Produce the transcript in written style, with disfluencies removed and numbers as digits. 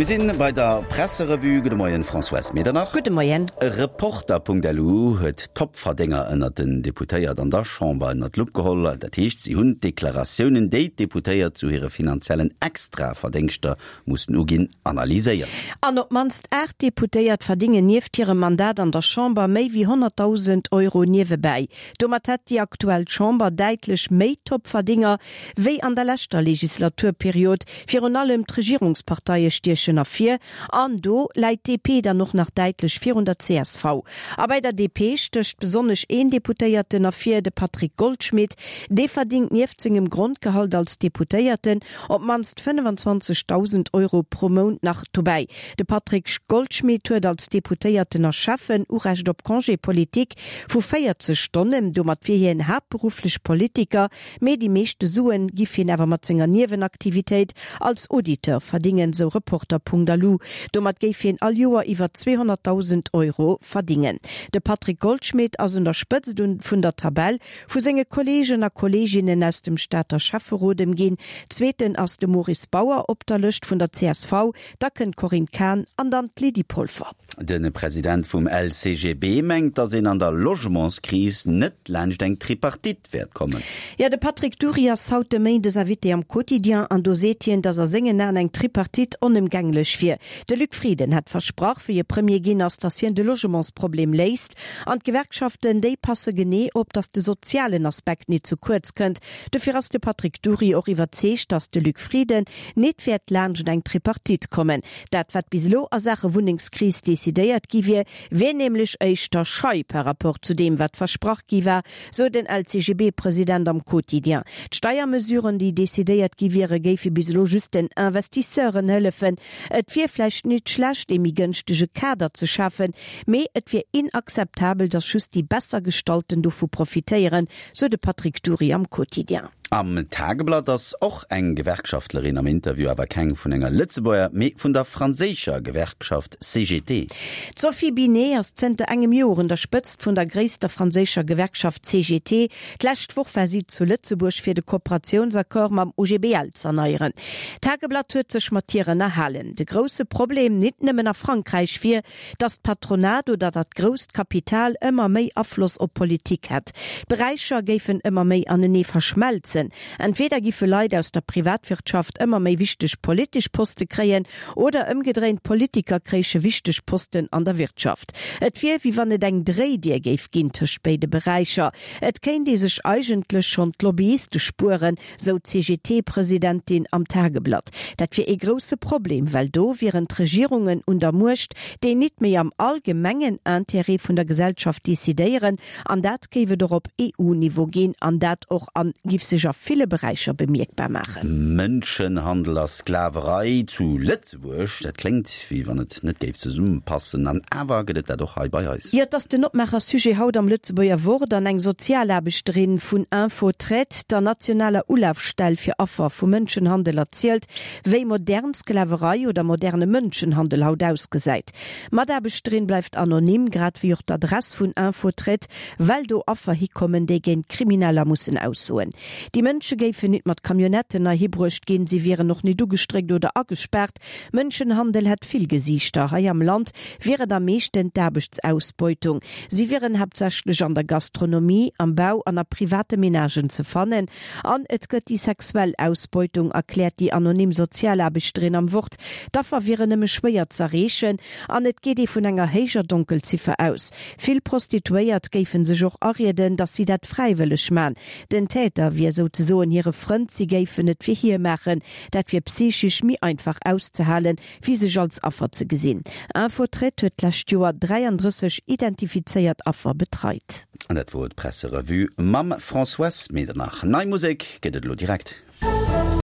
Mir sinn bei der Presserevue. Gudde Moien, Françoise Medernach. Gudde Moien. Reporter.lu huet d'Topverdénger ënnert den Deputéiert an der Chamber ënnert d'Lupp geholl. Dat heescht, si hunn d'Deklaratiounen, déi d'Deputéiert zu hire finanziellen Extraverdéngschter mussen uginn, analyséiert. An op d'mannst 8 Deputéiert verdéngen nieft hirem Mandat an der Chamber méi wéi 100.000 Euro niewebäi. Domat hätt déi aktuell Chamber däitlech méi Topverdénger Wéi an der leschter Legislaturperiod, virun allem d'Regierungsparteie stiechen ervir, an do läit d'DP dann och nach däitlech virun der csv. A bei der DP stécht besonnesch een Deputéierten ervir, de Patrick Goldschmidt. Dee verdingt nieft sengem Grondgehalt als Deputéierten op d'mannst 25.000 Euro pro Mount nach dobäi. De Patrick Goldschmidt huet als Deputéierten a Schäffen Urecht op Congé politique vu 40 Stonnen. Domat wier hien haaptberufflech Politiker. Mee déi meeschte Suen giff hien awer mat senger Niewenaktivitéit als Auditeur verdingen, sou Reporter.lu. Domat géif hien all Joer iwwer 200.000 Euro verdingen. De Patrick Goldschmidt ass un der Spëtzt vun der Tabell vu senge Kolleegen a Kolleeginnen aus dem Stater Schäfferot ëmginn. Zweeten ass de Maurice Bauer op der Lëscht vun der csv, da kënnt d'Corinne Cahen an dann d'Lydie Polfer. De President vum LCGB mengt, datt een an der Logementskris net laanscht eng Tripartite wäert kommen. Jo, de Patrick Dury ass haut de Méindes Invité am Quotidien an do seet hien, datt a sengen Aen eng Tripartite onëmgänglech wier. De Luc Frieden hätt versprach, wéi e Premier ginn ass, datt hien de Logementsproblem léist. An d'Gewerkschaften, déi passe genee op, datt de sozialen Aspekt nit zu kuerz kënnt. Dofir ass de Patrick Dury och iwwerzeegt, datt de Luc Frieden nit wäert laanscht eng Tripartite kommen. Dat wat bis elo a Saache Wunnengskris decidéiert gi wier, wier nämlech éischter schei par rapport zu deem wat versprach gi war, sou den LCGB-President am Quotidien. D'Steiermesuren déi decidéiert gi wiere géife bis elo just den Investisseuren hëllefen. Et wier vläicht nit schlecht ee méi gënschtege Kader ze schafen, mee et wier inakzeptabel, datt just déi besser Gestallten dovu profitéieren, sou de Patrick Dury am Quotidien. Am Tageblatt ass och eng Gewerkschaftlerin am Interview, awer keng vun enger Lëtzebuerger, mee vun der franséischer Gewerkschaft CGT. D'Sophie Binet ass zënter engem Joer un der Spëtzt vun der gréisster franséischer Gewerkschaft CGT. D'lescht Woch war si zu Lëtzebuerg fir de Kooperatiounsaccord mam OGBL z'erneieren. D'Tageblatt huet sech mat hir ënnerhalen. De grousse Problem, nit nëmmen a Frankräich, wier, Datt d'Patronat oder dat grousst Kapital ëmmer méi Afloss op d'Politik hätt. D'Beräicher géifen ëmmer méi anenee verschmelzen. Entweder giffe Leit aus der Privatwirtschaft ëmmer méi wichteg politesch Poste kréien oder ëmgedréint, Politiker kréiche wichteg Posten an der Wirtschaft. Et wier, wéi wann et eng Dréidier géif ginn tëscht béide Beräicher. Et kéint ee sech eigentlech schonn d'Lobbyiste spueren, sou d'CGT-Presidentin am Tageblatt. Dat wier ee grousse Problem, well do wieren d'Regierungen un der Muecht, déi nit méi am allgemengen Intérêt vun der Gesellschaft decidéieren. An dat géif et och op EU-Niveau ginn an dat och an giff sech a ville Beräicher bemierkbar maachen. Mënschenhandel a Sklaverei zu Lëtzebuerg, dat kléngt, wéi wann et net géif zesummepassen, an awer gëtt et dat och hei bei eis. Jo, et ass den Opmaacher-Sujet haut am Lëtzebuerger Wort an eng Sozialaarbechterin vun Info-Traite, der nationaler Ulafstell fir Affer vu Mënschenhandel, erzielt, wéi modern Sklaverei oder moderne Mënschenhandel haut ausgesäit. D'Mataarbechterin bleift anonym, grad wéi och d'Adress vun Info-Traite, well do Affer hikommen, déi géint Krimineller mussen aussoen. Déi Mënsche géifen nit mat Camionnetten heihi bruecht ginn, si wieren och nit ugestréckt oder agespaart. Mënschenhandel hätt vill Gesiichter. Hei am Land wier et am meeschten d'Aarbechtsausbeutung. Si wieren haaptsächlech an der Gastronomie, am Bau an a private Menagen ze fannen. An et gëtt déi sexuell Ausbeutung, erkläert déi anonym Sozialaarbechterin am Wort. D'Affer wieren nëmme schwéier z'erreechen an et geet ee vun enger héijer Donkelziffer aus. Vill Prostituéiert géife sech och arieden, datt si dat fräiwëlleg man. Den Täter wier souzesoen hire Frënd, si géifen et fir hie maachen. Dat wier psychisch méi einfach auszehalen, wéi sech als Affer ze gesinn. Info-Traite huet d'lescht Joer 33 identifizéiert Affer betreit. An dat wor d'Presserevue mam Françoise Medernach. Nei Musek gëtt et elo direkt.